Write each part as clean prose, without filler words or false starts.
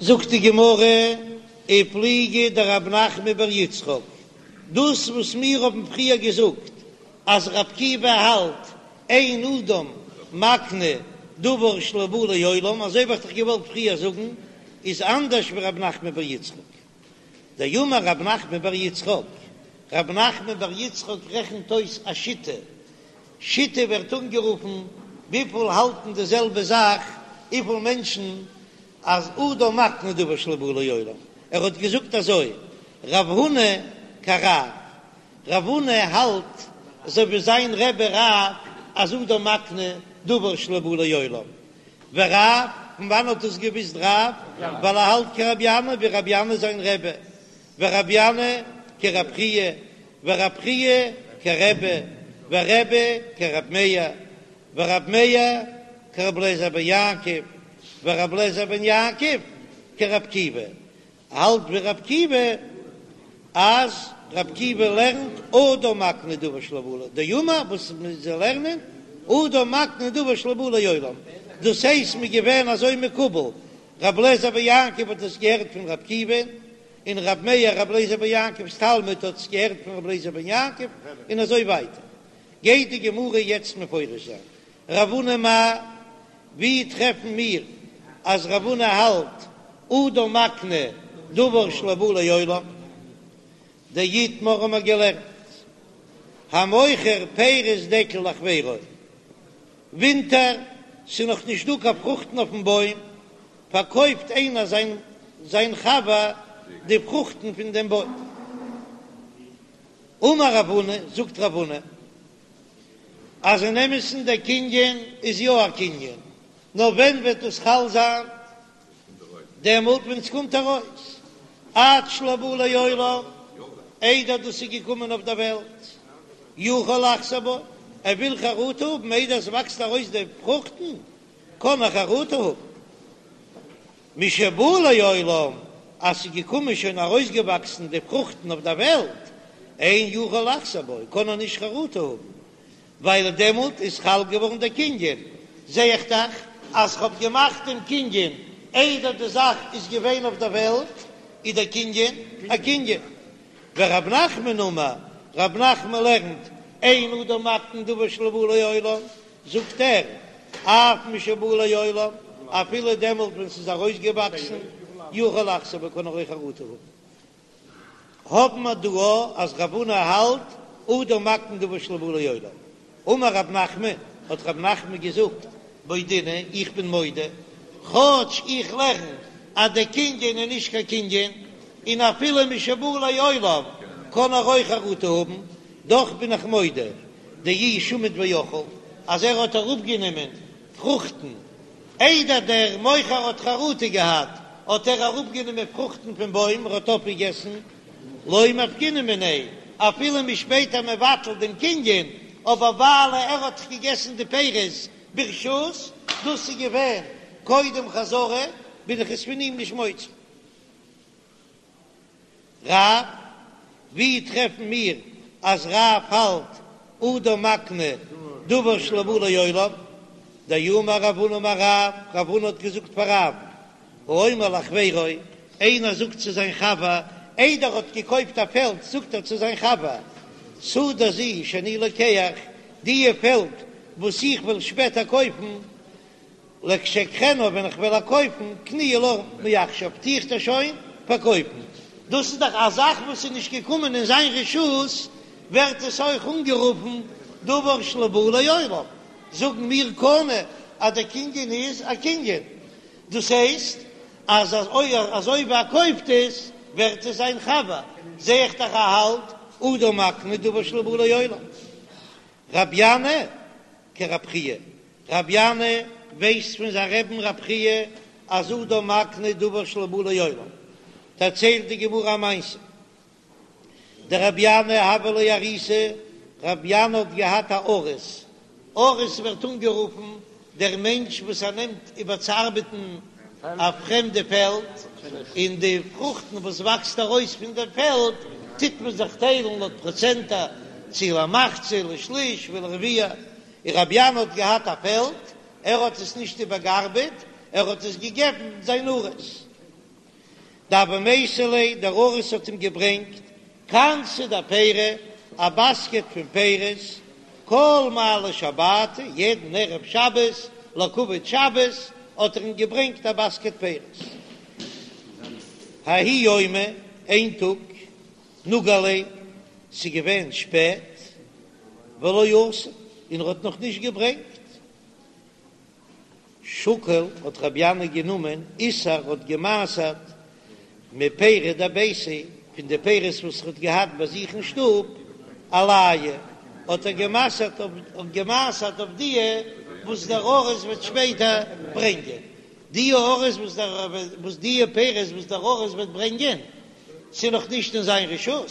זאגט די גמרא, ופליגא דרב נחמן בר יצחק, דאס וואס מיר האבן פריער געזאגט אז רבי עקיבא האלט אין אדם מקנה דבר שלא בא לעולם, אזוי האב איך דאך געוואלט פריער זאגן, איז אנדערש ווי רב נחמן בר יצחק. דאמר רב נחמן בר יצחק, רב נחמן בר יצחק רעכנט אויס א שיטה, שיטה ווערט אנגערופן וויפיל האלטן די זעלבע זאך, וויפיל מענטשן אז אדם מקנה דבר שלא בא לעולם, ער האט געזאגט אזוי, רב הונא כרב, רב הונא האלט אזוי ווי זיין רבי רב אז אדם מקנה דבר שלא בא לעולם, ורב, פון וואנען האט עס געוויסט רב? ווייל ער האלט כרבי ינאי ווי רבי ינאי זיין רבי, ורבי ינאי כרב חייא, ורב חייא כרבי, ורבי כרב מאיר, ורב מאיר כרבי אליעזר בן יעקב, ורבי אליעזר בן יעקב כרבי עקיבא, האלט ווי רבי עקיבא אז רבי עקיבא לערנט אדם מקנה דבר שלא בא לעולם, דאמר וואס זיי לערנען אדם מקנה דבר שלא בא לעולם, דאס הייסט מ'איז געווען אזוי מקובל, רבי אליעזר בן יעקב האט עס געהערט פון רבי עקיבא, און רבי מאיר רבי אליעזר בן יעקב'ס תלמיד האט עס געהערט פון רבי אליעזר בן יעקב, און אזוי ווייטער. גייט די גמרא יעצט מפרש זיין רב הונא מאי, ווי טרעפן מיר אז רב הונא האלט אדם מקנה דבר שלא בא לעולם? דאיתמר האבן מיר געלערנט המוכר פירות דקל לחבירו, ווינטער ס'איז נאך נישט דא קיין פרוכטן אויפן בוים, פארקויפט איינער זיין זיין חבר די פרוכטן פון דעם בוים. אמר רב הונא, זאגט רב הונא, אז אין אמת'ן דער קנין איז יא א קנין, נאר ווען וועט דאס חל זיין? דעמאלט ווען ס'קומט ארויס, עד שלא בא לעולם, איידער דאס איז געקומען אויף דער וועלט, יכול לחזור בו, ער וויל חרטה האבן איידער עס וואקסט ארויס די פרוכטן, קען ער חרטה האבן. משבא לעולם, אז ס'איז געקומען שוין ארויסגעוואקסן די פרוכטן אויף דער וועלט, אין יכול לחזור בו, קען ער נישט חרטה האבן, ווייל דעמאלט איז חל געווארן דער קנין, זע איך דאך אז כ'האב געמאכט דעם קנין איידער די זאך איז געווען אויף דער וועלט, איז דער קנין א קנין. ורב נחמן אמר, רב נחמן לערנט, אין אדם מקנה דבר שלא בא לעולם, זאגט ער, אף משבא לעולם, אפילו דעמאלט ווען ס'איז ארויסגעוואקסן, יכול לחזור בו, קען ער אויך חרטה האבן. האבן מיר דא אז רב הונא האלט אדם מקנה דבר שלא בא לעולם. אמר רב נחמן, האט רב נחמן געזאגט, מודינא, איך בין מודה, כאטש איך לערן אז דער קנין איז נישט קיין קנין, און אפילו משבא לעולם קען ער אויך חרטה האבן, דאך בין איך מודה, דאי שמיט ואכיל, אז ער האט אראפגענומען פרוכטן איידער דער מוכר האט חרטה געהאט, האט ער אראפגענומען פרוכטן פון בוים, ער האט אויפגעגעסן, לא מפקינן מיניה, אפילו מ'איז שפעטער מבטל דעם קנין, אבער ווייל ער האט געגעסן די פירות ברשות, דאס איז געווען קודם חזרה, בין איך עס פון אים נישט מוציא. רב, ווי טרעפן מיר אז רב האלט אדם מקנה דבר שלא בא לעולם? דאמר רב הונא אמר רב, רב הונא האט געזאגט פאר רב, האומר לחבירו, איינער זאגט צו זיין חבר, איידער ער האט געקויפט א פעלד זאגט ער צו זיין חבר, שדה זו שאני לוקח, דיע פעלד וואס איך וועל שפעטער קויפן, לכשאקחנה ווען איך וועל איר קויפן, קנויה לך מעכשיו, טו איך דיר שוין פארקויפן. דאס איז דאך א זאך וואס איז נישט געקומען אין זיין רשות, ווערט עס אויך אנגערופן דבר שלא בא לעולם. זאגן מיר קנה אז דער קנין איז א קנין, דאס הייסט אז אזוי ווי ער קויפט עס ווערט עס זיין חבר, זע איך דאך ער האלט אדם מקנה דבר שלא בא לעולם. רבי ינאי כרב חייא, רבי ינאי ווייסט פון זיין רבי'ן רב חייא אז אדם מקנה דבר שלא בא לעולם, דערציילט די גמרא א מעשה, דרבי ינאי הוה ליה אריסא, רבי ינאי האט געהאט א אריס, אריס ווערט אנגערופן דער מענטש וואס ער נעמט איבער צו ארבעטן א פרעמדע פעלד, און די פרוכטן וואס וואקסט ארויס פון דער פעלד טוט מען זיך טיילן לויט פראצענטער, צו למחצה, לשליש ולרביע, און רבי ינאי האט געהאט א פעלד, ער האט עס נישט איבערגעארבעט, ער האט עס געגעבן זיין אריס. דהוה מייתי ליה, דער אריס האט אים געברענגט כנתא דפירי, א באסקעט פון פירות, כל מעלי שבתא, יעדן ערב שבת, לכבוד שבת, האט ער אים געברענגט א באסקעט פירות. ההוא יומא, איין טאג, נגה ליה, ס'איז געווען שפעט, ולא אתא, און ער האט נאך נישט געברענגט. שקל האט רבי ינאי גענומען עישר האט גע'מעשר'ט מפירי דביתיה פון די פירות וואס ער האט געהאט ביי זיך אין שטוב עלייהו האט ער גע'מעשר'ט אויף גע'מעשר'ט אויף דיע וואס דער אריס וועט שפעטער ברענגען די אריס וואס דער וואס דיע פירות וואס דער אריס וועט ברענגען ס'איז נאך נישט אין זיין רשות,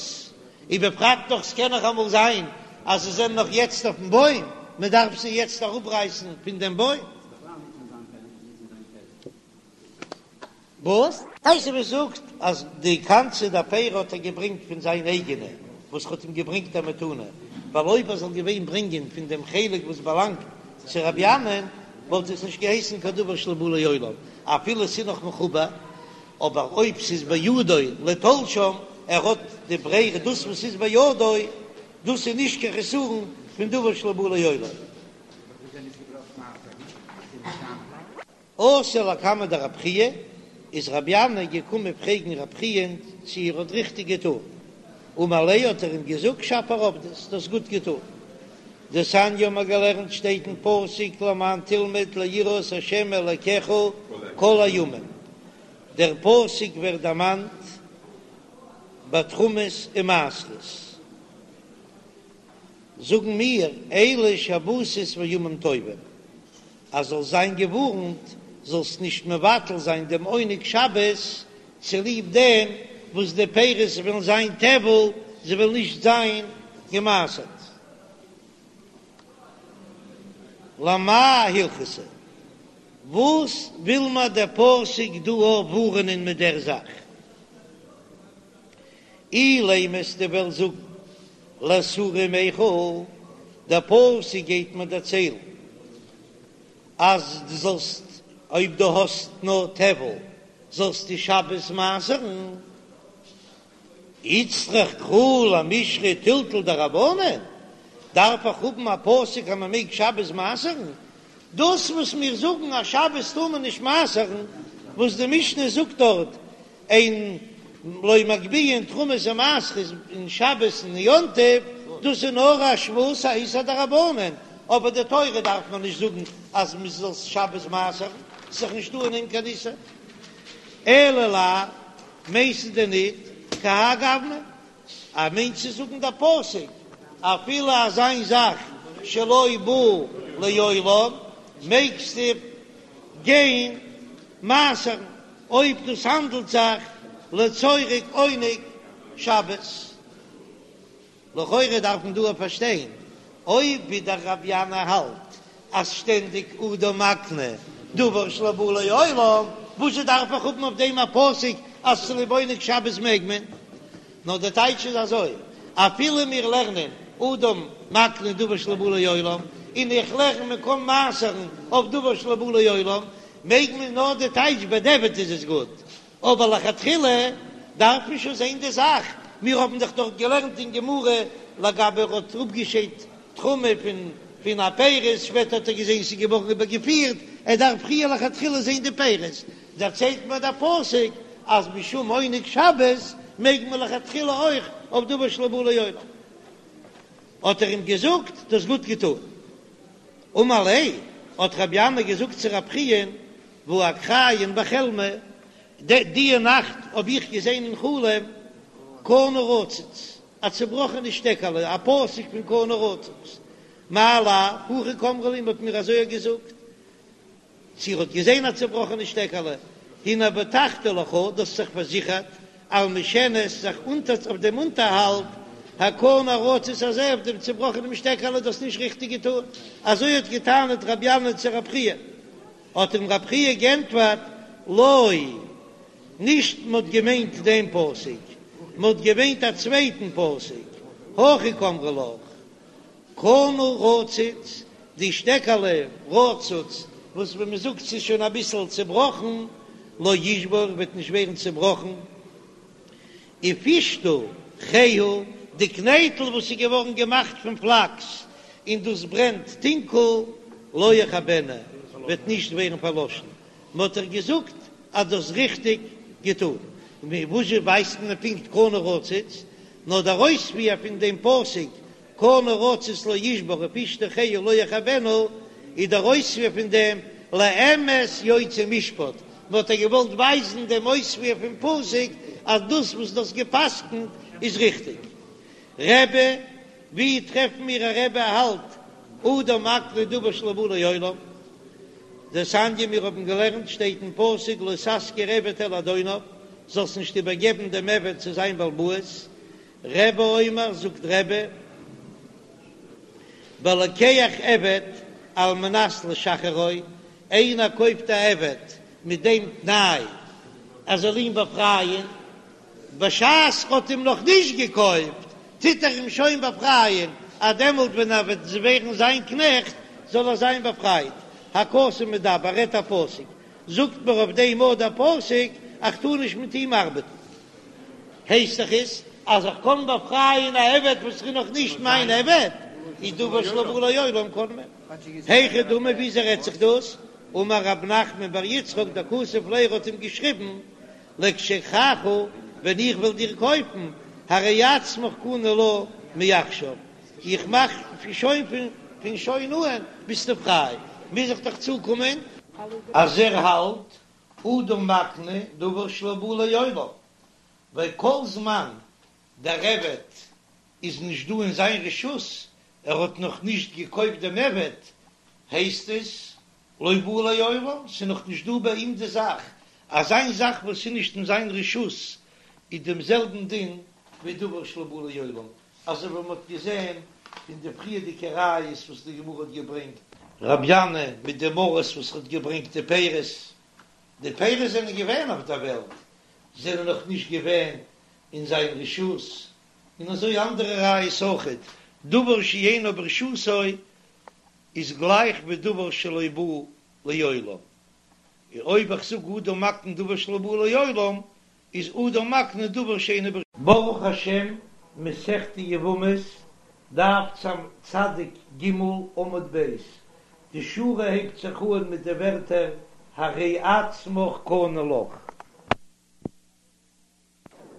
ובפרט נאך ס'קען נאך אמאל זיין אז זיי זענען נאך יעצט אויפן בוים, מען דארף זיי יעצט אראפרייסן פון דעם בוים. וואס? תוספות זאגט אז די כנתא דפירי האט ער געברענגט פון זיין אייגענע וואס האט אים געברענגט א מתנה, ווייל אויב ער זאל געווען ברענגען פון דעם חלק וואס באלאנגט צו רבי ינאי'ן וואלט עס נישט געהייסן קיין דבר שלא בא לעולם אפילו ס'איז נאך מחובר, אבער אויב ס'איז בידו לתלשם, ער האט די ברירה, דאס וואס איז בידו, דאס איז נישט קיין חסרון פון דבר שלא בא לעולם. אתא לקמיה דרב חייא, איז רבי ינאי געקומען פרעגן רב חיא'ן צו ער האט ריכטיג געטאן, אמר ליה האט ער אים געזאגט שפיר עבדת, דו האסט גוט געטאן. דתניא האבן מיר געלערנט שטייט אין פסוק למען תלמד ליראה את ה' אלקיך כל הימים, דער פסוק ווערט דערמאנט ביי תרומות און מעשרות, זאגן מיר אלו שבתות וימים טובים, אז זאלסט זיין געווארנט זאלסט נישט מבטל זיין דעם עונג שבת צוליב דעם וואס די פירות וועלן זיין טבל, זיי וועלן נישט זיין געמעשרט. למאי הלכתא? וואס וויל מיר דער פסוק דא ווארענען מיט דער זאך? אילימא אז דו וועסט זאגן לאתורי מיכל, דער פסוק גייט מיר דערציילן אז דו זאלסט אויב דו האסט נאר טבל זאלסטו שבת מעשר'ן, איצטריך קרא למישרי טלטול דרבנן, דארף איך האבן א פסוק אז מען מעג שבת מעשר'ן? דאס וואס מיר זאגן אז שבת טאר מען נישט מעשר'ן, וואס די משנה זאגט דארט אין לא מגביהין תרומות ומעשרות אין שבת און יום טוב, דאס איז נאר א שבות א איסור דרבנן, אבער די תורה דארף מען נישט זאגן אז מען זאל שבת מעשר'ן, ס'איז דאך נישטא אין דעם קיין איסור. אלא לאו, מיינסטו דען ניט כהאי גוונא? אז מיינט צו זאגן דער פסוק אפילו אזא זאך שלא בא לעולם מעגסטו גיין מעשר'ן אויב דאס האנדלט זיך לצורך עונג שבת. לכאורה דארף מען דא פארשטיין, אויב ווי דער רבי ינאי האלט אז שטענדיג אדם מקנה דבר שלא בא לעולם, וואזשע דארף איך האבן אויף דעם א פסוק אז צוליב עונג שבת מעג מען? נאר דער טייטש איז אזוי, אפילו מיר לערנען אדם מקנה דבר שלא בא לעולם, און איך לערן מען קען מעשר'ן אויף דבר שלא בא לעולם, מעג מען נאר די טייטש בדיעבד איז עס גוט, אבער לכתחילה דארף מען שוין זען די זאך, מיר האבן דאך דארט געלערנט אין גמרא לגבי ער האט אפגעשיידט תרומה פון פון א פירות, שפעטער האט ער געזען ס'איז געווארן איבערגעפירט, ער דארף פריער לכתחילה זען די פירות, דערציילט מיר דער פסוק אז משום עונג שבת מעג מען לכתחילה אויך אויף דבר שלא בא לעולם. האט ער אים געזאגט, דו האסט גוט געטאן. אמר ליה, האט רבי ינאי געזאגט צו רב חיא'ן, והא אקריין בחלמא, די נאכט האב איך געזען אין חלום קנה רצוץ, א צובראכענע שטעקעלע, א פסוק פון קנה רצוץ, מאי לאו, הכי קאמרי לי, מ'האט מיר אזוי געזאגט, צו ער האט געזען א צובראכענע שטעקעלע, הנה בטחת לך, דו האסט זיך פארזיכערט, על משענת, זיך אונטער אויף דעם אונטערהאלט, הקנה הרצוץ הזה, אויף דעם צובראכענעם שטעקעלע, דו האסט נישט ריכטיג געטאן, אזוי האט געטענה'ט רבי ינאי צו רב חייא. האט אים רב חייא גענטפערט, לא, נישט מ'האט געמיינט דעם פסוק, מ'האט געמיינט א צווייטן פסוק, הכי קאמרי לך, קנה רצוץ, די שטעקעלע רצוץ, וואס ווי מ'זאגט ס'איז שוין אביסל צעבראכן, לא ישבור, וועט נישט ווערן צעבראכן. ופשתא כהה, די קנייטל וואס איז געווארן געמאכט פון פלאקס און דאס ברענט טונקל, לא יכבנה, וועט נישט ווערן פארלאשן. מען האט דיר געזאגט אז דו האסט ריכטיג געטון. וואס זשע ווייסט מען פונקט קנה רצוץ? נאר דער אויספיר פון דעם פסוק קנה רצוץ לא ישבר ופשתא כהה לא יכבנה איז דער אויספיר פון דעם לאמת יוצא משפט, מען האט דיר געוואלט ווייזן דעם אויספיר פון פסוק אז דאס וואס דו האסט גע'פסק'נט איז ריכטיג. רבי, ווי טרעפן מיר א רבי האלט אדם מקנה דבר שלא בא לעולם? דתניא מיר האבן געלערנט שטייט אין פסוק לא תשכיר עבד אל אדוניו, זאלסט נישט איבערגעבן דעם עבד צו זיין בעל הבית, רבי אומר, זאגט רבי, בלוקח עבד על מנת לשחררו, איינער קויפט א עבד מיט דעם תנאי ער זאל אים באפרייען, בשעת ר'האט אים נאך נישט געקויפט טוט ער אים שוין באפרייען, אז דעמאלט ווען ער וועט ווערן זיין קנעכט זאל ער זיין באפרייט. הכתוב מדבר, רעדט א פסוק, זאגט מיר אויף דעם אט דער פסוק, איך טאר נישט מיט אים ארבעטן. הייסט דאך עס אז איך קען באפרייען א עבד וואס איז נאך נישט מיין עבד, איז דבר שלא בא לעולם קען מען. היכי דמי וויאזוי רעדט זיך דאס? אמר רב נחמן בר יצחק דכתב ליה האט אים געשריבן לכשאקחך ווען איך וועל דיר קויפן הרי עצמך קנוי לך מעכשיו איך מאך שוין פון שוין אהן ביסטו פריי מוז איך דאך צוקומען אז ער האלט אדם מקנה דבר שלא בא לעולם, ווייל כל זמן דער עבד איז נישט דא אין זיין רשות, ער האט נאך נישט געקויפט דעם עבד, הייסט עס לא בא לעולם, ס'איז נאך נישט דא ביי אים די זאך, אזא זאך וואס איז נישט אין זיין רשות איז דעם זעלבן דין ווי דבר שלא בא לעולם, אזוי ווי מ'האט געזען פון די פריערדיגע ראיות וואס די גמרא האט געברענגט. רבי ינאי מיט דעם אריס וואס האט געברענגט די פירות, די פירות זענען געווען אויף דער וועלט, זענען נאך נישט געווען אין זיין רשות, און אזוי אנדערע ראיות אויכעט, דבר שאינו ברשותו איז גלייך ווי דבר שלא בא לעולם, און אויב איך זאג אדם מקנה דבר שלא בא לעולם, איז אדם מקנה דבר שאינו ברשותו. ברוך השם, מסכת יבמות, דף צדיק ג עמוד ב', די שורה הייבט זיך אן מיט די ווערטער הרי עצמך קנוי לך.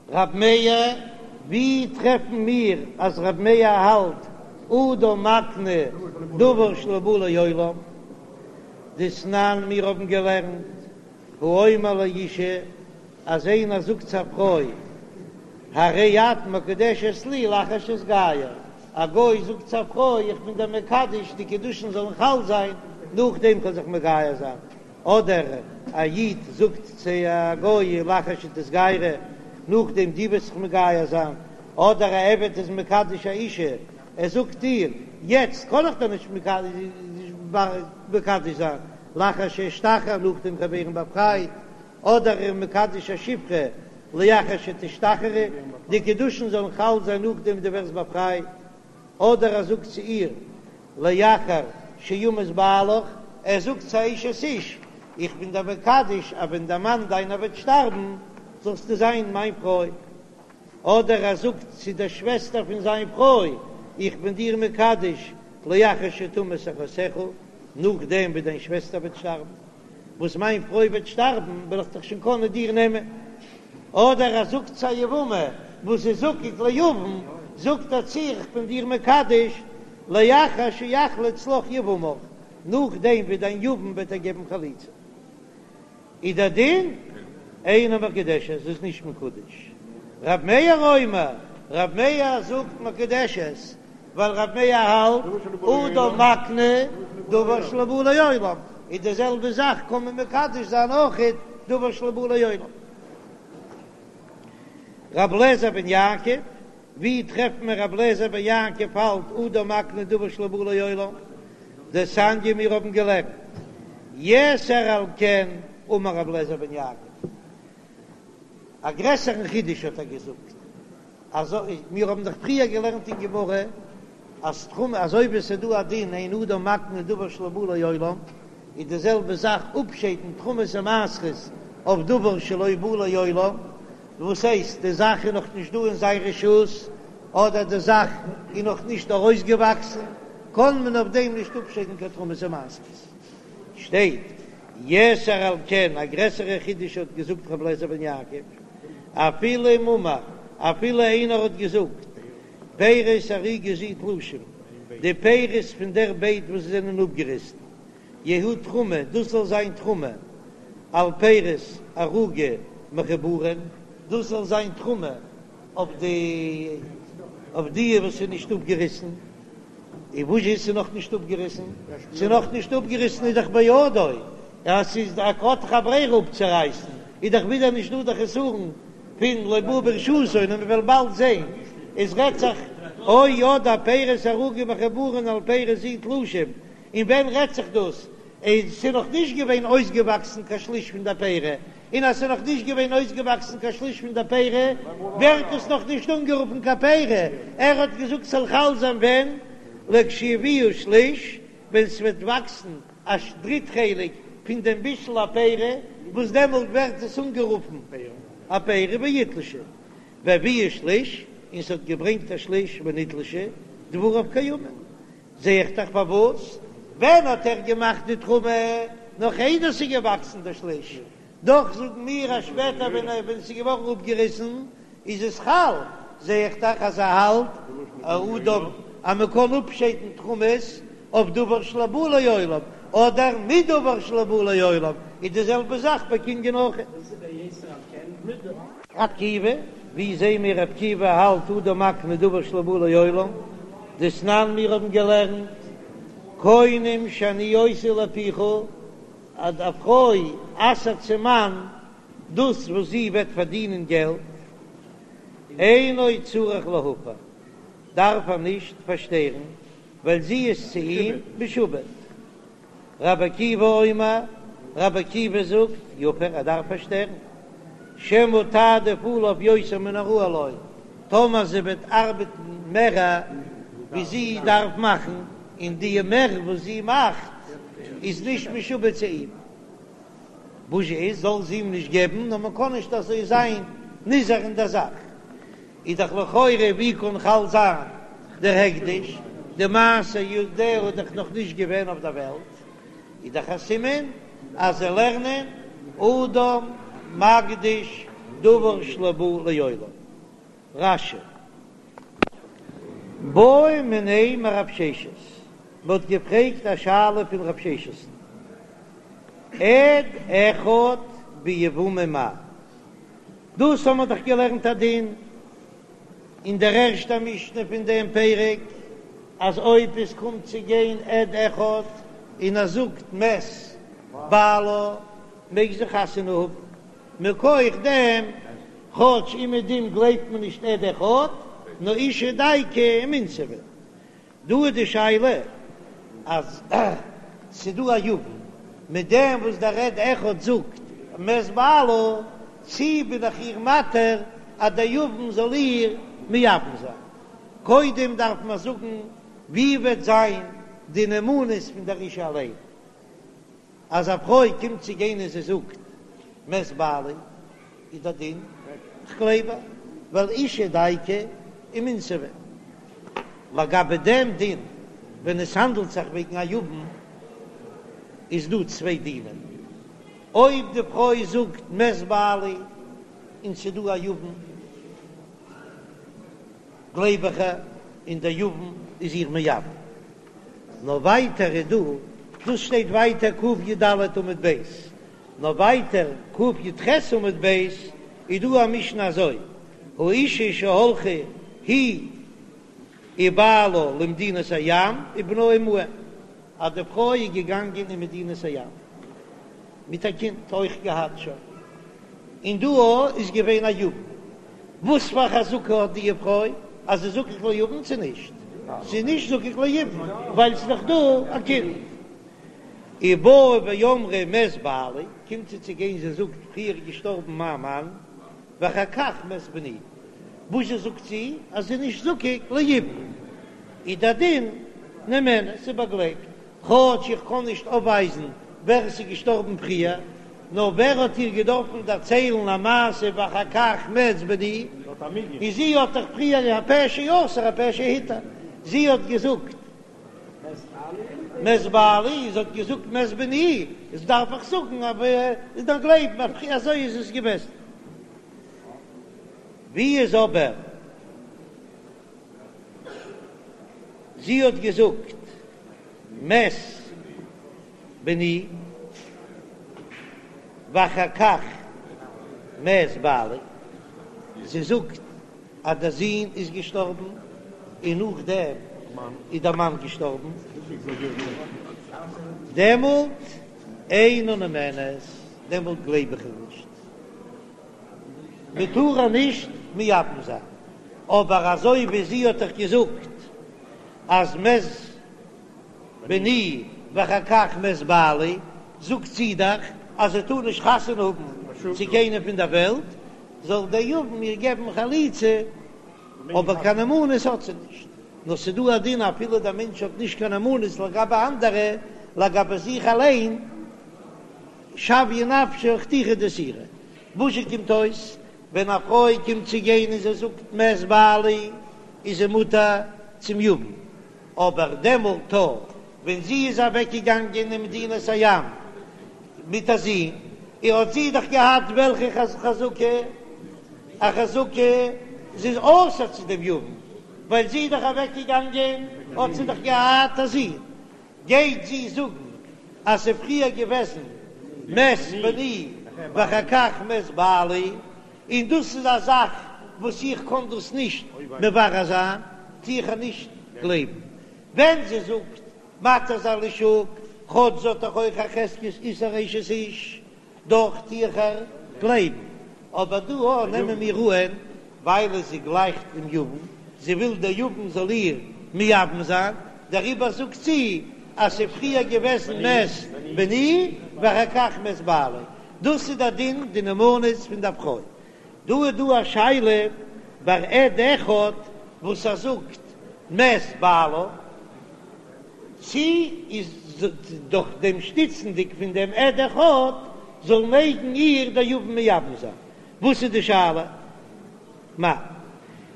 רב מאיר, ווי טרעפן מיר אז רב מאיר האלט אדם מקנה דבר שלא בא לעולם? דתנן מיר האבן געלערנט האומר לאשה אז איינער זאגט צו א פרוי הרי את מקודשת לי לאחר שאתגייר, א גוי זאגט צו א פרוי איך בין דיר מקדש די קידושין זאלן חל זיין נאכדעם כ'וועל זיך מגייר זיין, אדער א איד זאגט צו א גוי לאחר שתתגיירי נאכדעם דו וועסט זיך מגייר זיין, אדער א עבד איז מקדש א אישה ער זאגט איר יעצט קען איך דיר נישט מקדש זיין לאחר שאשתחרר נאכדעם כ'וועל ווערן באפרייט, אדער ער מקדש א שפחה לאחר שתשתחררי, די קידושין זאלן חל זיין נאכדעם דו ווערסט באפרייט, אדער ער זאגט צו איר לאחר שימות בעלך, ער זאגט צו א אשת איש, איך בין דיר מקדש אז ווען דער מאן דיינער וועט שטארבן זאלסטו זיין מיין פרוי, אדער ער זאגט צו דער שוועסטער פון זיין פרוי, איך בין דיר מקדש לאחר שתמות אחותך, נאכדעם ווי דיין שוועסטער וועט שטארבן. וואס מיין פרוי וועט שטארבן וועל איך דיך שוין קענען דיר נעמען. אדער ער זאגט צו א יבמה וואס איז זקוק ליבם, זאגט ער צו איר איך בין דיר מקדש לאחר שיחלוץ לך יבמך, נאכדעם ווי דיין יבם וועט דיר געבן חליצה. איז דער דין אינה מקודשת, זי איז נישט מקודש. רב מאיר אומר, רב מאיר זאגט מקודשת, ווייל רב מאיר האלט אדם מקנה דבר שלא בא לעולם, איז די זעלבע זאך קען מען מקדש זיין אויכעט דבר שלא בא לעולם. רב לעזער בן יעקב, ווי טרעפט מען רב לעזער בן יעקב האלט אדם מקנה דבר שלא בא לעולם? דתניא מיר האבן געלערנט יתר על כן אמר רב לעזער בן יעקב, א גרעסערן חידוש האט ער געזאגט, אזוי מיר האבן דאך פריער געלערנט אין גמרא אז תרומה אזוי ווי עס איז דא א דין אין אדם מקנה דבר שלא בא לעולם, איז די זעלבע זאך אפשיידן תרומות און מעשרות. אויף דבר שלא בא לעולם, וואס הייסט די זאך איז נאך נישט דא אין זיין רשות, אדער די זאך איז נאך נישט ארויסגעוואקסן, קען מען אויף דעם נישט אפשיידן קיין תרומות ומעשרות. שטייט יתר על כן, א גרעסערע חידוש האט געזאגט רבי אליעזר בן יעקב, אפילו אם אמר, אפילו איינער האט געזאגט, פירות ערוגה זו תלושים, די פירות פון דער בייט וואס זענען אפגעריסן, יהיו תרומה, דאס זאל זיין תרומה, על פירות ערוגה מחוברין, דאס זאל זיין תרומה אויף די אויף די וואס איז נישט אפגעריסן, און וואס איז ס'נאך נישט אפגעריסן? ס'איז נאך נישט אפגעריסן איז דאך בידו, אז ס'איז ער האט דאך א ברירה אפצורייסן, איז דאך ווידער נישט דא די חסרון פון לא בא ברשותו, און מ'וועל באלד זען, עס רעדט זיך או אדער פירות ערוגה מחוברין על פירות זו תלושים, און ווען רעדט זיך דאס? איז ס'איז נאך נישט געווען אויסגעוואקסן קיין שליש פון די פירה, און אז ס'איז נאך נישט געווען אויסגעוואקסן קיין שליש פון די פירה, ווערט עס נאך נישט אנגערופן קיין פירה, ער האט געזאגט ס'זאל חל זיין ווען? לכשיביאו שליש, ווען ס'וועט וואקסן א דריט חלק פון דעם בישול הפירה, וואס דעמאלט ווערט עס אנגערופן א פירה ויתלשו, והביאו שליש, און ס'האט געברענגט א שליש ונתלשו, דבריו קיימין. זע איך דאך פארוואס, ווען האט ער געמאכט די תרומה? נאך איידער ס'איז געוואקסן דער שליש, דאך זאגן מיר אז שפעטער ווען ער ווען ס'איז געווארן אפגעריסן איז עס חל, זע איך דאך אז ער האלט אדם אז מען קען אפשיידן תרומות אויף דבר שלא בא לעולם, אדער מדבר שלא בא לעולם, איז די זעלבע זאך ביי קנין אויך. ר' עקיבא, ווי זעהן מיר ר' עקיבא האלט אדם מקנה דבר שלא בא לעולם, דתנן מיר האבן געלערנט קונים שאני עושה לפיך, אז א פרוי אסר'ט צום מאן דאס וואס זי וועט פארדינען געלט, אינו צריך להפר, דארף ער נישט פארשטערן, ווייל זי איז צו אים משועבד. רבי עקיבא אומר, רבי עקיבא זאגט, יפר, ער דארף פארשטערן, שמא תעדיף עליו יותר מן הראוי לו, טאמער זי וועט ארבעטן מער ווי זי דארף מאכן, און די מער וואס זי מאכט איז נישט משועבד צו אים, וואס איז, זאל זי אים נישט געבן, נאר מען קען נישט אזוי זיין נזהר אין דער זאך. איז דאך לכאורה ווי קען חל זיין דער הקדש, די מעשה ידיה איז דאך נאך נישט געווען אויף דער וועלט, איז דאך א סימן אז זיי לערנען אדם מקדיש דבר שלא בא לעולם. רש"י. בעו מיניה מרב ששת, מען האט געפרעגט א שאלה פון רב ששת'ן, עד אחד ביבמה מהו? דאס האבן מיר דאך געלערנט א דין אין דער ערשטער משנה פון דעם פרק, אז אויב עס קומט צו גיין עד אחד און ער זאגט מת בעלה מעג זי חתונה האבן, מכח דעם כאטש אומעדום גלייבט מען נישט עד אחד, נאר אשה דייקא ומינסבא. דא איז די שאלה אז ס'דא א יבם מיט דעם וואס דער עד אחד זאגט מת בעלה, צי בין איך איר מתיר אז דער יבם זאל איר מייבם זיין? קודם דארף מען זאגן ווי וועט זיין די נאמנות פון דער אישה אליין. אז א פרוי קומט צו גיין און זי זאגט מת בעלי איז דער דין כ'גלייב איר ווייל אשה דייקא ומינסבא. לגבי דעם דין ווען עס האנדלט זיך וועגן א יבם איז דא צוויי דינים, אויב די פרוי זאגט מת בעלי און ס'איז דא א יבם גלייב איך איר און דער יבם איז איר מייבם. נאר ווייטער איז דא, דאס שטייט ווייטער קי"ד עמוד ב', נאר ווייטער קי"ח עמוד ב' איז דא א משנה אזוי, האשה שהלכה היא ובעלה למדינת הים ובנה עמהם, אז די פרוי איז געגאנגען אין מדינת הים מיט א קינד אויך געהאט שוין. און דא איז געווען א יבם. וואס פאר חזקה האט די פרוי אז זי איז זקוק ליבם צו נישט? זי איז נישט זקוק ליבם ווייל ס'איז דאך דא א קינד. ובאה ואמרה מת בעלי, קומט זי צו גיין זי זאגט פריער איז געשטארבן מיין מאן ואחר כך מת בני, וואס זשע זאגט זי אז זי איז נישט זקוק ליבם? איז דער דין נאמנת, ס'איז באגלייבט. כאטש איך קען נישט אויפווייזן ווער עס איז געשטארבן פריער, נאר ווער האט איר געדארפן דערציילן א מעשה ואחר כך מת בני, און זי האט דאך פריער הפה שאסר הפה שהתיר, זי האט געזאגט מת בעלי, זי האט געזאגט מת בני, איז דארף איך זאגן אז איז דאך גלייבן אזוי איז עס געוועזן. ווי איז אבער זי האט געזאגט מת בני ואחר כך מת בעלי, זי זאגט אז דער זון איז געשטארבן און נאכדעם איז דער מאן געשטארבן, דעמאלט אינה נאמנת, דעמאלט גלייב איך איר נישט. מען טאר איר נישט מייבם זיין, אבער אזוי ווי זי האט דאך געזאגט אז מת בני ואחר כך מת בעלי, זאגט זי דאך אז זי טאר נישט חתונה האבן צו קיינעם פון דער וועלט, זאל דער יבם איר געבן חליצה, אבער קיין נאמנות האט זי נישט. נאר ס'איז דא א דין אפילו דער מענטש האט נישט קיין נאמנות לגבי אנדערע, לגבי זיך אליין, שויה נפשה חתיכה דאיסורא. וואזשע קומט אויס ווען א פרוי קומט צו גיין און זי זאגט מת בעלי איז זי מותר צום יבם, אבער דעמאלט ווען זי איז אוועק געגאנגען אין מדינת הים מיט א זון, און האט זי דאך געהאט וועלכע חזקה? א חזקה זי איז אסור צו דעם יבם, ווייל זי איז דאך אוועק געגאנגען האט זי דאך געהאט א זון, גייט זי זאגן אז ס'איז פריער געוועזן מת בני ואחר כך מת בעלי, און דאס איז א זאך וואס איך קען דאס נישט מברר זיין, טו איך איר נישט גלייבן ווען זי זאגט מתיר זיין לשוק, כאטש זי האט דאך אויך א חזקת איסור אשת איש, דאך טו איך איר גלייבן, אבער דא א נעמען מיר אהן ווייל זי גלייכט דעם יבם, זי וויל דער יבם זאל איר מייבם זיין, דעריבער זאגט זי אז ס'איז פריער געוועזן מת בני ואחר כך מת בעלי, דאס איז דער דין די נאמנות פון דער פרוי. דא איז דא א שאלה ביי עד אחד וואס ער זאגט מת בעלה, צי איז דורך דעם שטיצנדיג פון דעם עד אחד זאל מעגן איר דער יבם מייבם זיין? וואס איז די שאלה? מאי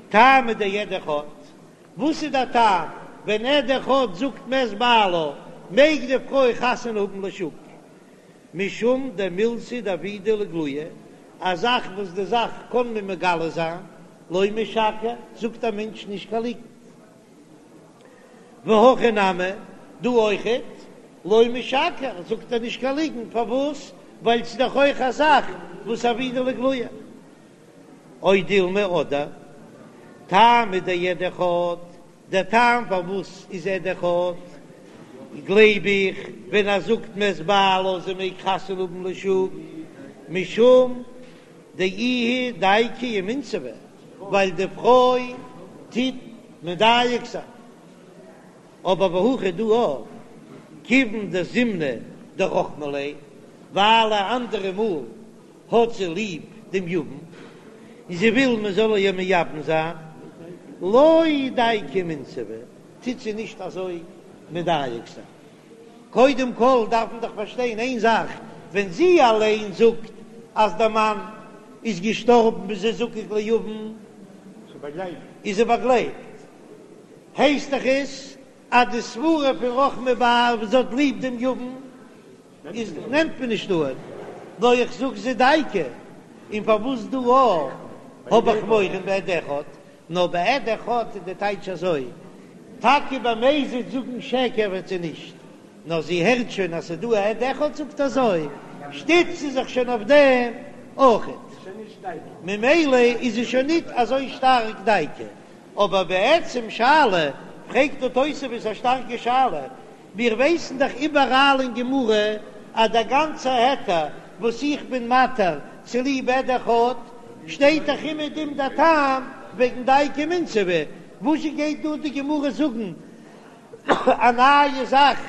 טעמא דעד אחד? וואס איז דער טעם ווען עד אחד זאגט מת בעלה מעג די פרוי חתונה האבן לשוק? משום דמילתא דעבידא לאיגלויי, א זאך וואס די זאך קען מען מגלה זיין, לא משקר, זאגט א מענטש נישט קיין ליגנט. והכא נמי, דא אויכעט, לא משקר, זאגט ער נישט קיין ליגנט, פארוואס? ווייל ס'איז דאך אויך א זאך וואס עבידא לאיגלויי. או דילמא אדער, טעמא דעד אחד, דער טעם פארוואס איז עד אחד, גלייב איך, ווען ער זאגט מת בעלה זי מעג חתונה האבן לשוק, משום דאיהי דייקא ומינסבא, ווייל די פרוי טוט מדייק זיין. אבער והכא דא אויך, כיוון דזימנין דרחמא ליה, ווייל א אנדערע מאל האט זי ליב דעם יבם און זי וויל מען זאל איר מייבם זיין, לא דייקא ומינסבא, טוט זי נישט אזוי מדייק זיין. קודם כל דארף מען דאך פארשטיין איין זאך, ווען זי אליין זאגט אז דער מאן איז געשטארבן איז זי זקוק ליבם, איז זי באגלייבט, הייסט דאך עס אז די סברה פון רחמי בעל וואס זי האט ליב דעם יבם איז נעמט מען נישט אן, נאר איך זאג זי דייקא, און פארוואס דא א האב איך מורא בעד אחד, נאר בעד אחד איז די טייטש אזוי, טאקע במזיד זאגן שקר וועט זי נישט, נאר זי הערט שוין אז ס'איז דא א עד אחד זאגט אזוי, שטיצט זי זיך שוין אויף דעם אויכעט, ממילא איז זי שוין ניט אזוי שטארק דייקא. אבער בעצם שאלה, פרעגט דא תוספות א שטארקע שאלה, מיר ווייסן דאך איבעראל אין גמרא אז דער גאנצער היתר וואס איך בין מתיר צוליב עד אחד, שטייט דאך אומעדום דער טעם וועגן דייקא ומינסבא, וואזשע גייט דא די גמרא זאגן א נייע זאך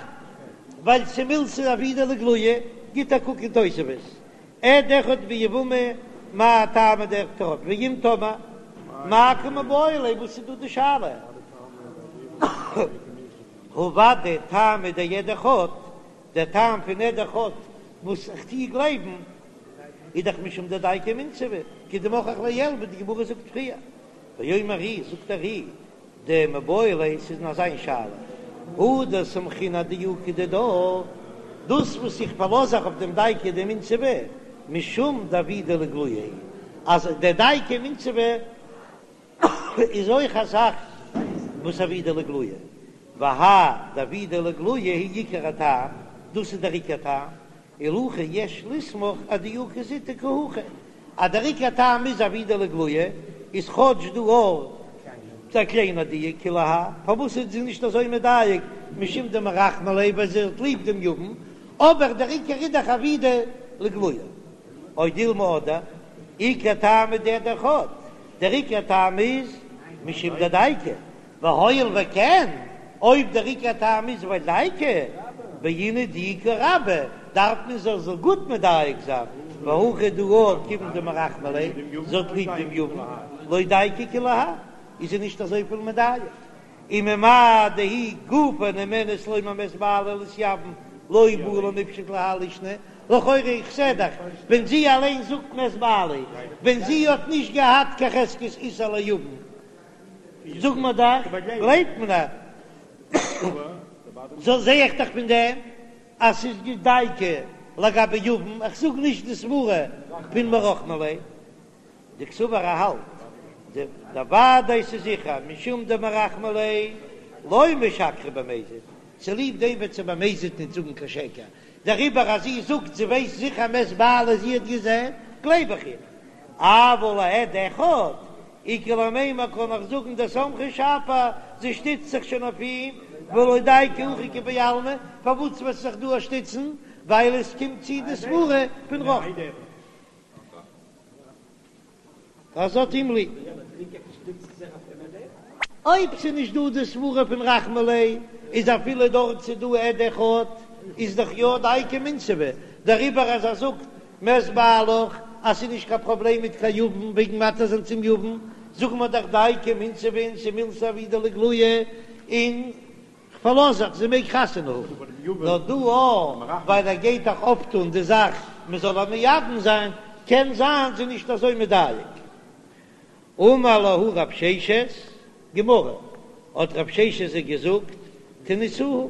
ווייל ס'מילתא דעבידא לאיגלויי? גיט א קוק אין תוספות, עד אחד ביבמה מאי טעמא דעד אחד ואם תאמר מאי קא מיבעיא ליה וואס איז דא די שאלה? הא ודאי טעמא דעד אחד, דער טעם פון עד אחד וואס איך טוה גלייבן. איז דאך משום דדייקא ומינסבא, כדמוכח לעיל ווי די גמרא זאגט פריער. ואומר ר"י, זאגט דער ר"י, דמיבעי ליה ס'איז נאר זיין שאלה, הא דסמכינן אדיוקא דידה, דאס וואס איך פארלאז זיך אויף דעם דייקא דמינסבא, משום דעבידא לאיגלויי, אז דער דייקא ומינסבא איז אויך א זאך וואס עבידא לאיגלויי, והאי דעבידא לאיגלויי הוא עיקר הטעם, דאס איז דער עיקר טעם, ולהכי יש לסמוך אדיוקא זוטא כי הכי, אז דער עיקר טעם איז עבידא לאיגלויי, איז כאטש דא אויך א קליינע דיוק כולי האי, פארוואס איז זי נישט אזוי מדייק משום דמרחמא ליה ווייל זי האט ליב דעם יבם, אבער דער עיקר איז דאך עבידא לאיגלויי. או דילמא אדער, עיקר טעמא דעד אחד, דער עיקר טעם איז משום דדייקא, והואיל וכן, אויב דער עיקר טעם איז ווייל דייקא, בעינן דיוקא רבה, דארף מען זי זאל גוט מדייק זיין, והכא דא כיוון דמרחמא ליה, זי האט ליב דעם יבם, לא דייקא כולי האי, איז זי נישט אזויפיל מדייק. וממאי דהיא גופה נאמנת לומר מת בעלי להתייבם לא בעי למיפשט להאי לישנא, לכאורה איך זע דאך ווען זי אליין זאגט מת בעלי, ווען זי האט נישט געהאט קיין חזקת איסור ליבם, זאג מיר דאך, גלייבט מען איר? זא זע איך דאך פון דעם אז ס'איז דייקא לגבי יבם, איך זאג נישט די סברה פון מרחמא ליה, דקסבר ער האלט דודאי ס'איז זיכער משום דמרחמא ליה לא משקרא במזיד, צוליב דעם וועט זי במזיד ניט זאגן קיין שקר, דעריבער אז זי זאגט זי ווייסט זיכער מת בעלה זי האט געזען, גלייב איך איר. אבל לעד אחד, איכא למימר קען איך זאגן דסמכא שפיר, זי שטיצט זיך שוין אויף אים, ולא דייקא הכא כבעלמא, פארוואס וועט זי זיך דא שטיצן? ווייל עס קומט צו די סברה פון רחמי. אז זי האט אים ליב. אויב ס'איז נישט דא די סברה פון רחמי ליה, איז אפילו דארט ס'איז דא עד אחד, איז דאך יא דייקא ומינסבא, דעריבער אז ער זאגט מת בעלך אז ס'איז נישט קיין פראבלעם מיט קיין יבם וועגן מתיר זיין צום יבם, זאגן מיר דאך דייקא ומינסבא און ס'מילתא עבידא לאיגלויי און כ'פארלאז זיך, זי מעג חתונה האבן. נאר דא אויך, ווייל ער גייט דאך אויפטון די זאך מ'זאל איר מייבם זיין, קען זיין זי נישט אזוי מדייק. אמר להו רב ששת, גמרא, האט רב ששת זיי געזאגט, תניתוה,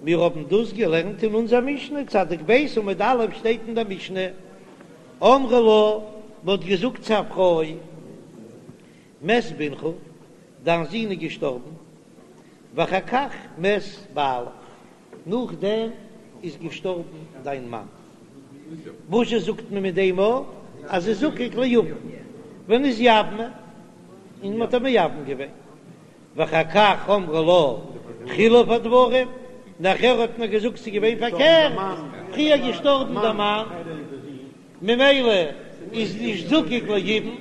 מיר האבן דאס געלערנט אין אונזער משנה, צדיק ב' עמוד א' שטייט אין דער משנה, אמרו לה, מ'האט געזאגט צו א פרוי, מת בנך, דיין זון איז געשטארבן, ואחר כך מת בעלך, נאכדעם איז געשטארבן דיין מאן. וואזשע זאגט מען מיט דעם א אז זי איז זקוק ליבם, ונתייבמה, און מען האט איר מייבם געווען. ואחר כך אמרו לה חילוף הדברים, נאכער האט מען געזאגט ס'איז געווען פארקערט, פריער געשטארבן דער מאן, ממילא איז נישט זקוק ליבם.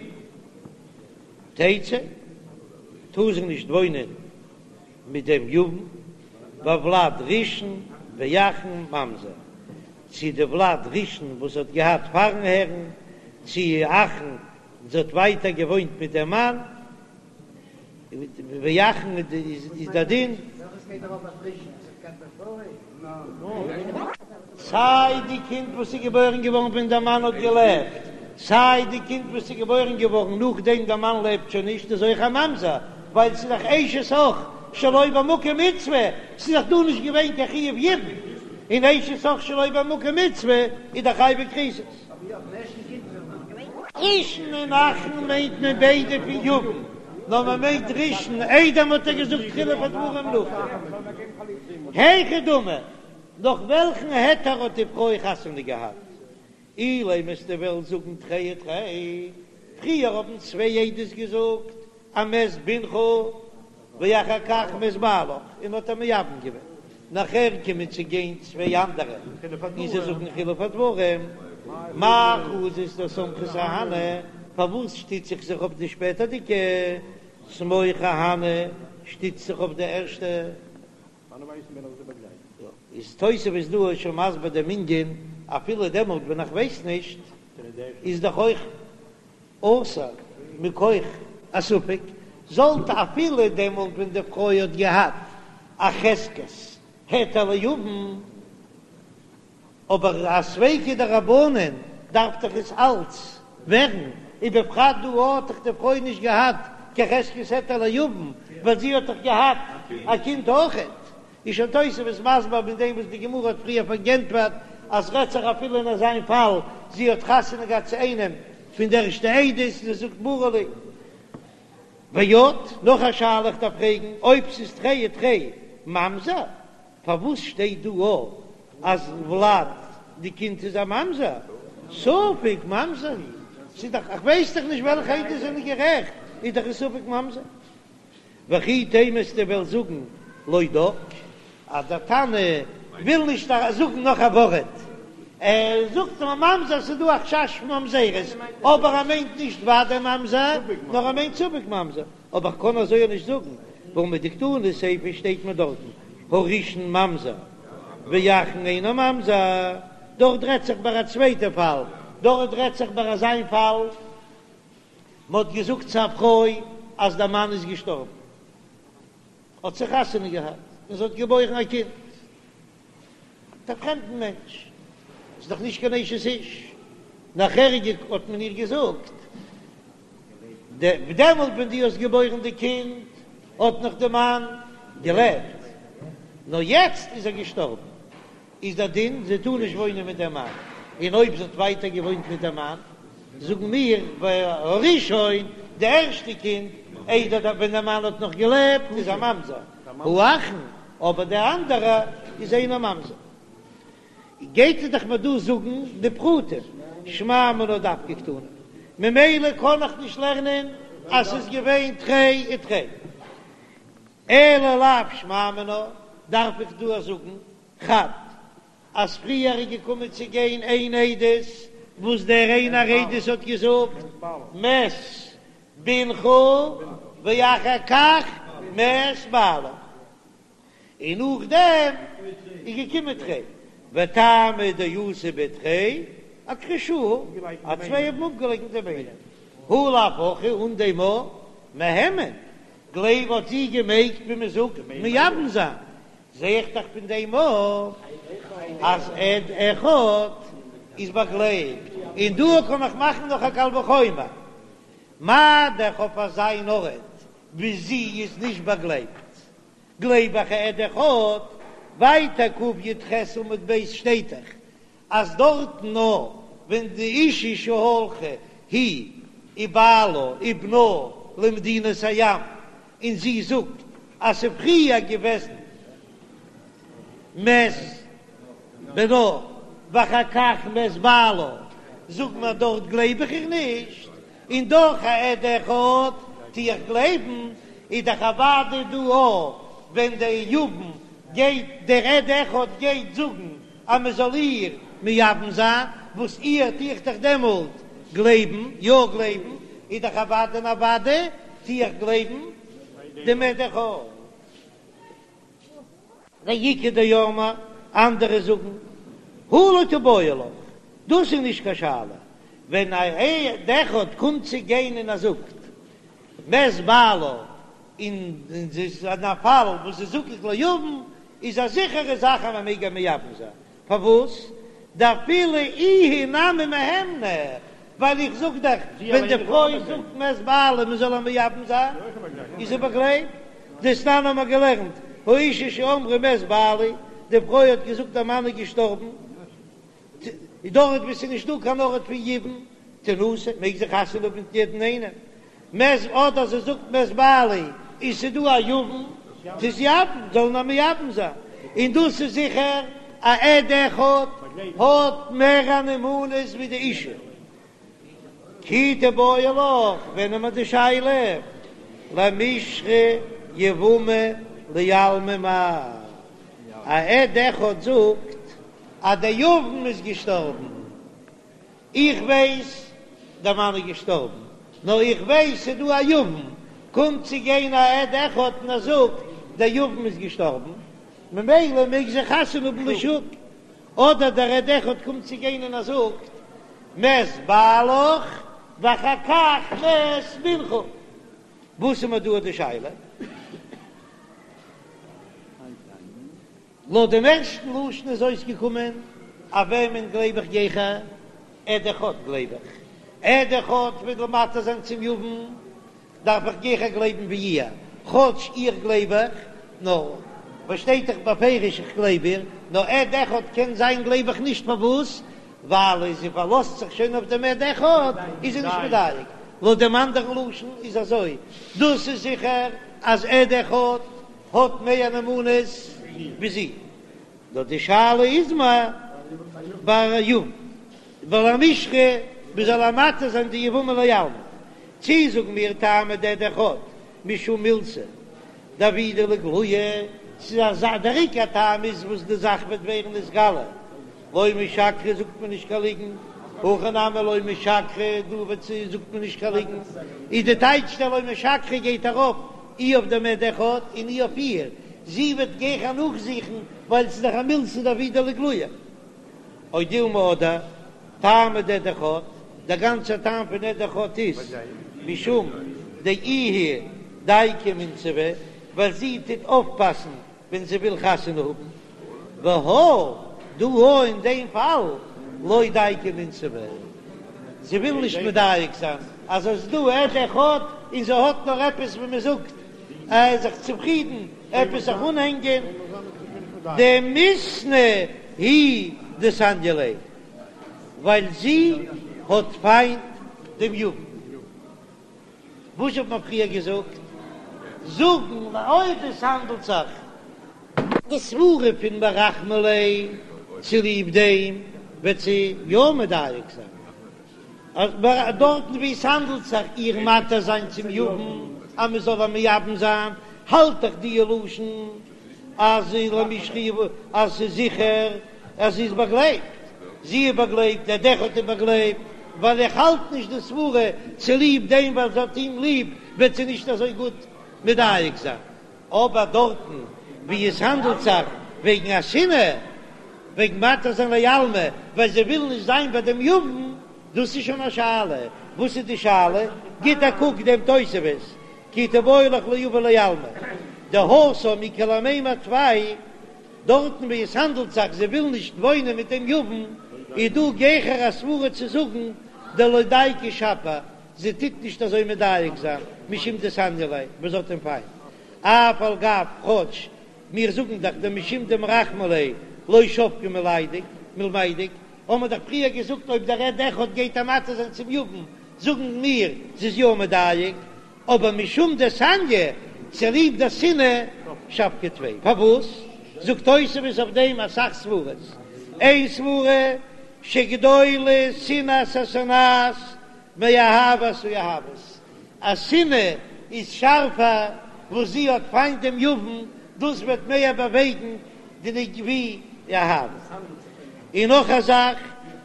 תצא, טאר זי נישט וואוינען מיט דעם יבם, והולד ראשון ואחרון ממזר, צו די ולד ראשון וואס זי האט געהאט פארן הערן, צו אחרון זי האט ווייטער געוואוינט מיט דעם מאן, ואחרון איז דער דין. סיי די קינד וואס איז געבוירן געווארן ווען דער מאן האט געלעבט, סיי די קינד וואס איז געבוירן געווארן נאכדעם דער מאן לעבט שוין נישט איז אויך א ממזר, ווייל ס'איז דאך אשת אח שלא במקום מצוה, ס'איז דאך דא נישט געווען קיין חיוב יבום, און אשת אח שלא במקום מצוה איז דאך חייבי כריתות. ראשון און אחרון מיינט מען ביידע פון יבם, נאר מען מיינט ראשון איידער מ'האט איר געזאגט חילוף הדברים נאכדעם. היכי דמי, נאך וועלכן היתר האט די פרוי חתונה געהאט? אילימא וועסטו וועלן זאגן תרי ותרי, פריער האבן צוויי עדות געזאגט אז מת בנך ואחר כך מת בעלך און האט איר מייבם געווען, נאכער קומען צו גיין צוויי אנדערע און זיי זאגן חילוף הדברים, מאי חזית דסמכת אהני, פארוואס שטיץ איך זיך אויף די שפעטערדיגע, סמוך אהני, שטיץ זיך אויף די ערשטע. איז תוספות דא שוין מסביר דעם ענין, אפילו דעמאלט ווען איך ווייס נישט, איז דאך אויך אסור מכח א ספק, זאלט אפילו דעמאלט ווען די פרוי האט געהאט א חזקת היתר ליבם, אבער א ספיקא דרבנן. דארף דאך עס אלץ ווערן, ובפרט דא האט דאך די פרוי נישט געהאט קיין חזקת היתר ליבם, ווייל זי האט דאך געהאט א קינד אויכעט. איז שוין תוספות מסביר מיט דעם וואס די גמרא האט פריער פארענטפערט אז רעדט זיך אפילו אין אזיין פאל זי האט חתונה געהאט צו איינעם פון די ערשטע עדות און זי זאגט ברי לי. ועוד, נאך א שאלה איך דארף פרעגן, אויב ס'איז תרי ותרי ממזר, פארוואס שטייט דא א אז ולד די קינד איז א ממזר? ספק ממזר הוא, ס'איז דאך, איך ווייס דאך נישט וועלכע עדות זענען גערעכט, איז דאך א ספק ממזר. וכי תימא וועסטו וועלן זאגן לא דק, אז דער תנא וויל נישט זאגן נאך א ווארט, ער זאגט נאר ממזר, ס'איז דא א חשש פון ממזרות, אבער ער מיינט נישט ודאי ממזר, נאר ער מיינט ספק ממזר, אבער כ'קען אזוי אויך נישט זאגן, והא מדקתני סיפא שטייט מיר דארטן הראשון ממזר ואחרון אינו ממזר, דארט רעדט זיך ביי א צווייטע פאל, דארט רעדט זיך ביי אזיין פאל. מען האט געזאגט צו א פרוי אז דער מאן איז געשטארבן, האט זי חתונה געהאט און זי האט געבוירן א קינד מיט א פרעמדן מענטש, ס'איז דאך נישט קיין אשת איש, נאכער האט מען איר געזאגט, דעמאלט ווען דו האסט געבוירן די קינד האט נאך די מאן געלעבט, נאר יעצט איז ער געשטארבן. איז דער דין זי טאר נישט וואוינען מיט דעם מאן, און אויב זי האט ווייטער געוואוינט מיט דעם מאן, זאגן מיר והראשון, די ערשטע קינד, איידער דער ווען דער מאן האט נאך געלעבט, איז א ממזר, האחרון, אבער דער אנדערע איז אינו ממזר. גייט ער דאך מיר דא זאגן די פרטים, שמע מינה דווקא קתני, ממילא קען איך נישט לערנען אז ס'איז געווען תרי ותרי. אלא לאו שמע מינה, דארף איך דא זאגן חד אז פריער איז געקומען צו גיין איין עדות וואס דער איינער עדות האט געזאגט מת בנך ואחר כך מת בעלה, און נאכדעם איז געקומען תרי וטעמא דאתו בי תרי אכחשוה, אז צוויי האבן אפגעלייקנט דעם איינעם, הא לאו הכי אן דעם מהימן גלייב האט זי געמעגט ווי מען זאגט מייבם זיין, זע איך דאך פון דעם אויף אז עד אחד איז באגלייבט, און דא קען איך מאכן נאך א קל וחומר, מה דאך אויף אזא ארט ווי זי איז נישט באגלייבט, גלייב איך עד אחד, ווייטער קי"ח עמוד ב' שטייט דאך אז דארטן נאר ווען די אשה שהלכה היא ובעלה ובנה למדינת הים און זי זאגט אז ס'איז פריער געוועזן מת בנה ואחר כך מת בעלה זאגט מען דארט גלייב איך איר נישט און דאך א עד אחד טו איך גלייבן איז דאך אוודאי דא אויך ווען דער יבם גייט דער עד אחד גייט זאגן אז מען זאל איר מייבם זיין, וואס איר טו איך דאך דעמאלט גלייבן, יא גלייבן, איז דאך אוודאי און אוודאי טו איך גלייבן דעם עד אחד. ואיכא דאמרי, אנדערע זאגן, הא לא תיבעי לך, דאס איז נישט קיין שאלה, ווען א עד אחד קומט צו גיין און ער זאגט מת בעלה, און ס'איז אין א פאל וואס זי זקוקה ליבם, איז א זיכערע זאך אז מען מעג איר מייבם זיין, פארוואס? דאפילו איהי נמי מהימנא, ווייל איך זאג דאך ווען די פרוי זאגט מת בעלי מען זאל איר מייבם זיין, איז זי באגלייבט, דתנן האבן מיר געלערנט, האשה שאמרה מת בעלי, די פרוי האט געזאגט דער מאן איז געשטארבן, דארט וואו ס'איז נישט דא קיין ארט פון יבום, תנשא, מעג זי חתונה האבן מיט יעדן איינעם, מת אדער זי זאגט מת בעלי און ס'איז דא א יבם, תתייבם, זאל מען מייבם זיין, און דאס איז זיכער א עד אחד האט מער א נאמנות ווי די אישה. כי תיבעי לך, ווען האט מען די שאלה? למישרי יבמה לעלמא מאי, א עד אחד זאגט אז דער יבם איז געשטארבן, איך ווייס דער מאן איז געשטארבן, נאר איך ווייס ס'איז דא א יבם, קומט צו גיין א עד אחד און ער זאגט דער יבם איז געשטארבן, ממילא מעג זי חתונה האבן לשוק, אדער דער עד אחד קומט צו גיין און ער זאגט מת בעלך ואחר כך מת בנך, וואס איז מיר דא די שאלה? לויט דעם ערשטן לשון איז אויסגעקומען, אויף וועמען גלייב איך גיכער? עד אחד גלייב איך, עד אחד וויל מתיר זיין צום יבם, דארף איך גיכער גלייבן ווי איר, כאטש איר גלייב איך, נאר וואס שטייט דאך בפירוש איך גלייב איר, נאר עד אחד קען זיין גלייב איך נישט פארוואס? ווייל אז זי פארלאזט זיך שוין אויף דעם עד אחד איז זי נישט מדייק, לויט דעם אנדערן לשון איז אזוי, דאס איז זיכער אז עד אחד האט מער נאמנות ווי זי, נאר די שאלה איז מה ביי יבם ולמישרי מ'זאל איר מתיר זיין די יבמה לעלמא, צי זאגן מיר טעמא דעד אחד משום מילתא דעבידא לאיגלויי, ס'איז אזא דער עיקר טעם איז וואס די זאך וועט ווערן נתגלה, לא משקרא זאגט מען נישט קיין ליגן, הכא נמי לא משקרא דא וועט זי זאגט מען נישט קיין ליגן, איז די טייטש דער לא משקרא גייט ארויף אי אויף דעם עד אחד און אי אויף איר, זי וועט גיכער נאכזוכן ווייל ס'איז דאך א מילתא דעבידא לאיגלויי. או דילמא אדער טעמא דעד אחד, דער גאנצער טעם פון עד אחד איז משום דאיהי דייקא ומינסבא, ווייל זי טוט אויפפאסן ווען זי וויל חתונה האבן, והא דא הא אין דעם פאל לא דייקא ומינסבא, זי וויל נישט מדייק זיין אז עס איז דא עד אחד און זי האט נאר עפעס ווי מען זאגט זיך צופרידן עפעס זיך אנהענגען, דמיתנא הוא דסניא ליה, ווייל זי האט פיינט דעם יבם. וואס האט מען פריער געזאגט? זאגן אויב עס האנדלט זיך די סברה פון מרחמא ליה צוליב דעם וועט זי יא מדייק זיין אז דארטן ווי עס האנדלט זיך איר מתיר זיין צום יבם אז מען זאל איר מייבם זיין האלט איך די לשון אז למישרי אז ס'איז זיכער אז זי איז באגלייבט, זי איז באגלייבט, דער עד אחד איז באגלייבט, ווייל איך האלט נישט די סברה צוליב דעם ווייל זי האט אים ליב וועט זי נישט אזוי גוט מדייק זיין, אבער דארטן ווי עס האנדלט זיך וועגן א שנאה, וועגן מתיר זיין לעלמא ווייל זי וויל נישט זיין ביי דעם יבם, דאס איז שוין א שאלה, וואס איז די שאלה? גיט א קוק דעם תוספות, כי תיבעי לך ליבמה לעלמא, דהתם איכא למימר טפי דארטן ווי עס האנדלט זיך זי וויל נישט וואוינען מיט דעם יבם, איז דא גיכער א סברה צו זאגן דלא דייקא שפיר, זי טוט נישט אזוי מדייק זיין משום דסניא ליה וואס זי האט אים פיינט, אף על גב כאטש מיר זאגן דאך דמשום דמרחמא ליה לא שבקה מלמידק, האבן מיר דאך פריער געזאגט אויב דער עד אחד גייט איר מתיר זיין צום יבם זאגן מיר זי איז יא מדייק, אבער משום דסניא, צוליב די שנאה, שבקה טפי. פארוואס? זאגט תוספות אויף דעם אסאך סברות. איין סברה, שגדולה שנאת השונאת מאהבת האוהבת, אז שנאה איז שארפער וואס זי האט פיינט דעם יבם, דאס וועט מער באוועגן די נג ווי אהבה. און נאך א זאך,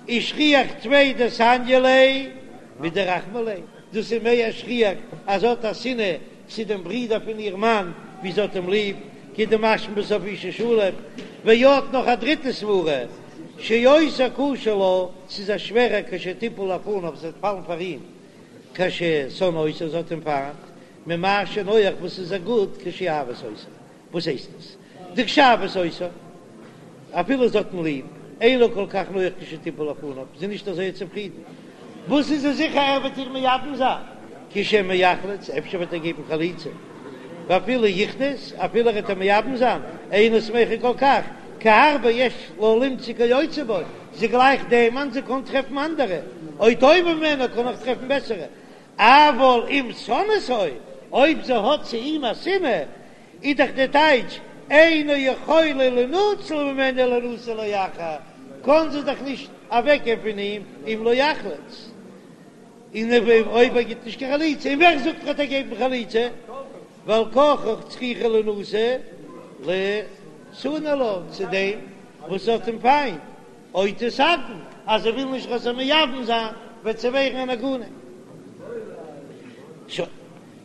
ושכיח טפי דסניא ליה מדרחמא ליה, דאס איז מער שכיח אז זי האט א שנאה צו דעם ברודער פון איר מאן ווי זי האט אים ליב, כדמשמע בסוף אשה שלום, ועוד נאך א דריטע סברה, שיותר קשה לה, ס'איז איר שווערער כשתיפול לפניו, זי וועט פאלן פאר אים, כששונאה אותו, זי האט אים פיינט, ממה שנוח וואס איז איר גוט כשאוהבת אותו. וואס הייסט עס? דכשאוהבת אותו, אפילו זי האט אים ליב, אינה כל כך נוח כשתיפול לפניו, זי איז נישט אזוי צופרידן. וואס איז זי זיכער ער וועט איר מייבם זיין? כי שמא יחלוץ, אפשר וועט ער געבן חליצה. ואפילו יכרות, אפילו ער וועט איר מייבם זיין, אינה שמחה כל כך, כי הרבה יש לה למצוא כיוצא בו, זי גלייכט דעם מאן, זי קען טרעפן אנדערע, או טובים ממנו, קען אויך טרעפן בעסערע. אבל אם שונאתו, אויב זי האט צו אים א שנאה, איז דאך די טייטש, אינה יכולה לינצל ממנו לינשא לאחר, קען זי דאך נישט אוועקגיין פון אים אם לא יחלוץ, און אויב ער גיט נישט קיין חליצה, און ווער זאגט ער וועט געבן חליצה, ועל כרחך צריכה לינשא לשנוא לה, צו דעם וואס האט אים פיינט. או תתעגן, אז זי וויל נישט ער זאל מייבם זיין, וועט זי ווערן אן עגונה. שוין,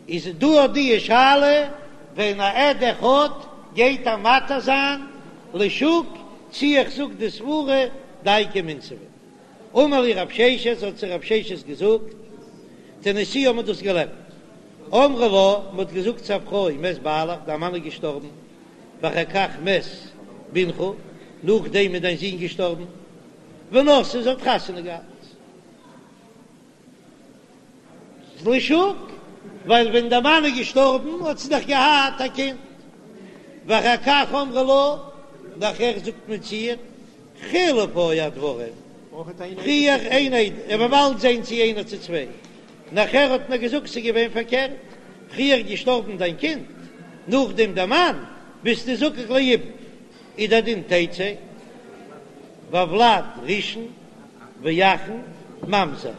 איז דא אט די שאלה, ווען א עד אחד גייט איר מתיר זיין לשוק, צי איך זאג די סברה דייקא ומינסבא. אמר להו רב ששת, האט זיי רב ששת געזאגט, תניתוה האט מען דאס געלערנט. אמרו לה, מען האט געזאגט צו א פרוי, מת בעלך, דיין מאן איז געשטארבן, ואחר כך מת בנך, נאכדעם איז דיין זון געשטארבן, ונשאה, זי האט חתונה געהאט. לשוק, ווייל ווען דער מאן איז געשטארבן האט זי דאך געהאט א קינד, ואחר כך אמרו לה, נאכער זאגט מען צו איר, חילוף היו הדברים, פריער איין עד, און מ'וועט באלד זען צו איינער צו צוויי, נאכער האט מען געזאגט ס'איז געווען פארקערט, פריער געשטארבן דיין קינד, נאכדעם דער מאן, ביסטו זקוק ליבום, איז דער דין תצא, והולד ראשון ואחרון ממזר,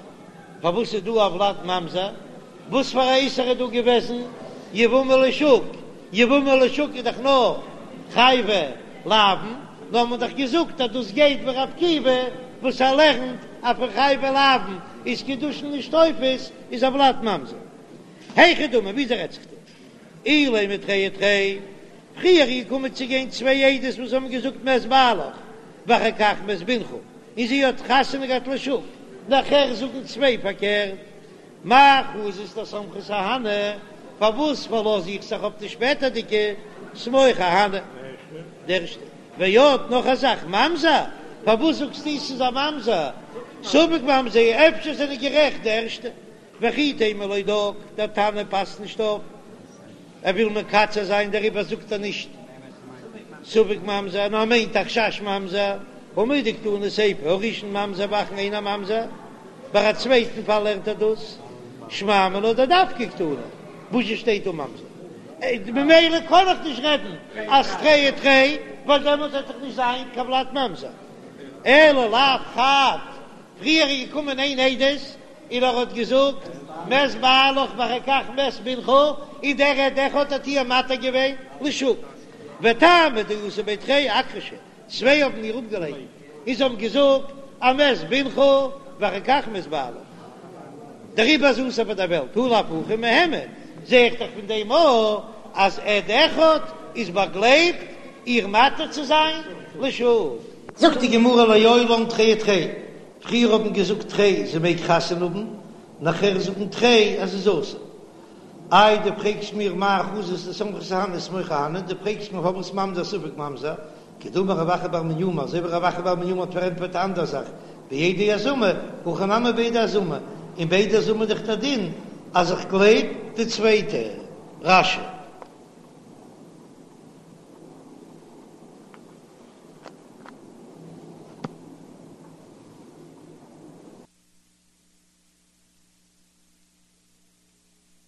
פארוואס איז דא הולד ממזר? וואס פאר א איסור איז דא געוועזן? יבמה לשוק, יבמה לשוק איז דאך נאר חייבי לאוין, נאר מען האט דאך געזאגט אז דאס גייט ווי ר' עקיבא וואס ער לערנט אז פון חייבי לאוין איז קידושין נישט תופס, איז הולד ממזר. היכי דמי, וויאזוי רעדט זיך דא? אילימא תרי ותרי, פריער איז געקומען צו גיין צוויי עדות וואס האבן געזאגט מת בעלך ואחר כך מת בנך, און זי האט חתונה געהאט לשוק, נאכער זאגן צוויי פארקערט, מאי חזית דסמכת אהני, פארוואס פארלאז איך זיך אויף די שפעטערדיגע סמוך אהני? די ערשטע. ועוד נאך א זאך, ממזר, פארוואס זאגסטו ס'איז א ממזר? ספק ממזר, אפשר זענען גערעכט די ערשטע. וכי תימא לא דק, דער תנא פאסט נישט אויף, ער וויל מקצר זיין דעריבער זאגט ער נישט ספק ממזר, נאר ער מיינט א חשש ממזר, הא מדקתני סיפא הראשון ממזר ואחרון אינו ממזר, ביי א צווייטן פאל לערנט ער דאס שמע מינה דדווקא קתני, וואס שטייט דא ממזר? ממילא קען איך נישט רעדן אז תרי ותרי, ווייל דעמאלט וועט דאך נישט זיין קיין ולד ממזר, אלא לאו חד, פריער איז געקומען איין עדות און ער האט געזאגט מת בעלך ואחר כך מת בנך, און דער עד אחד האט איר מתיר געווען לשוק, וטעמא דאתו בי תרי אכחשו, צוויי האבן איר אפגעלייקנט און זיי האבן געזאגט אז מת בנך ואחר כך מת בעלך, דעריבער איז אסור פאר דער וועלט, הא לאו הכי מהימן, זע איך דאך פון דעם אויך אז עד אחד איז באגלייבט איר מתיר צו זיין לשוק. זאגט די גמרא לעולם תרי ותרי, פריער האבן געזאגט תרי זי מעג חתונה האבן, נאכער זאגן תרי אז זי איז אסור. איי דו פרעגסט מיר מאי חזית דסמכת אהני סמוך אהני, דו פרעגסט מיר פארוואס ממזר ספק ממזר, כדאמר רב אחא בר מניומי, אזוי ווי רב אחא בר מניומי האט פארענטפערט א אנדער זאך, בעדי הזמה, הכא נמי בעדי הזמה, און בעדי הזמה איז דאך דער דין אז איך גלייב די צווייטע. רש"י.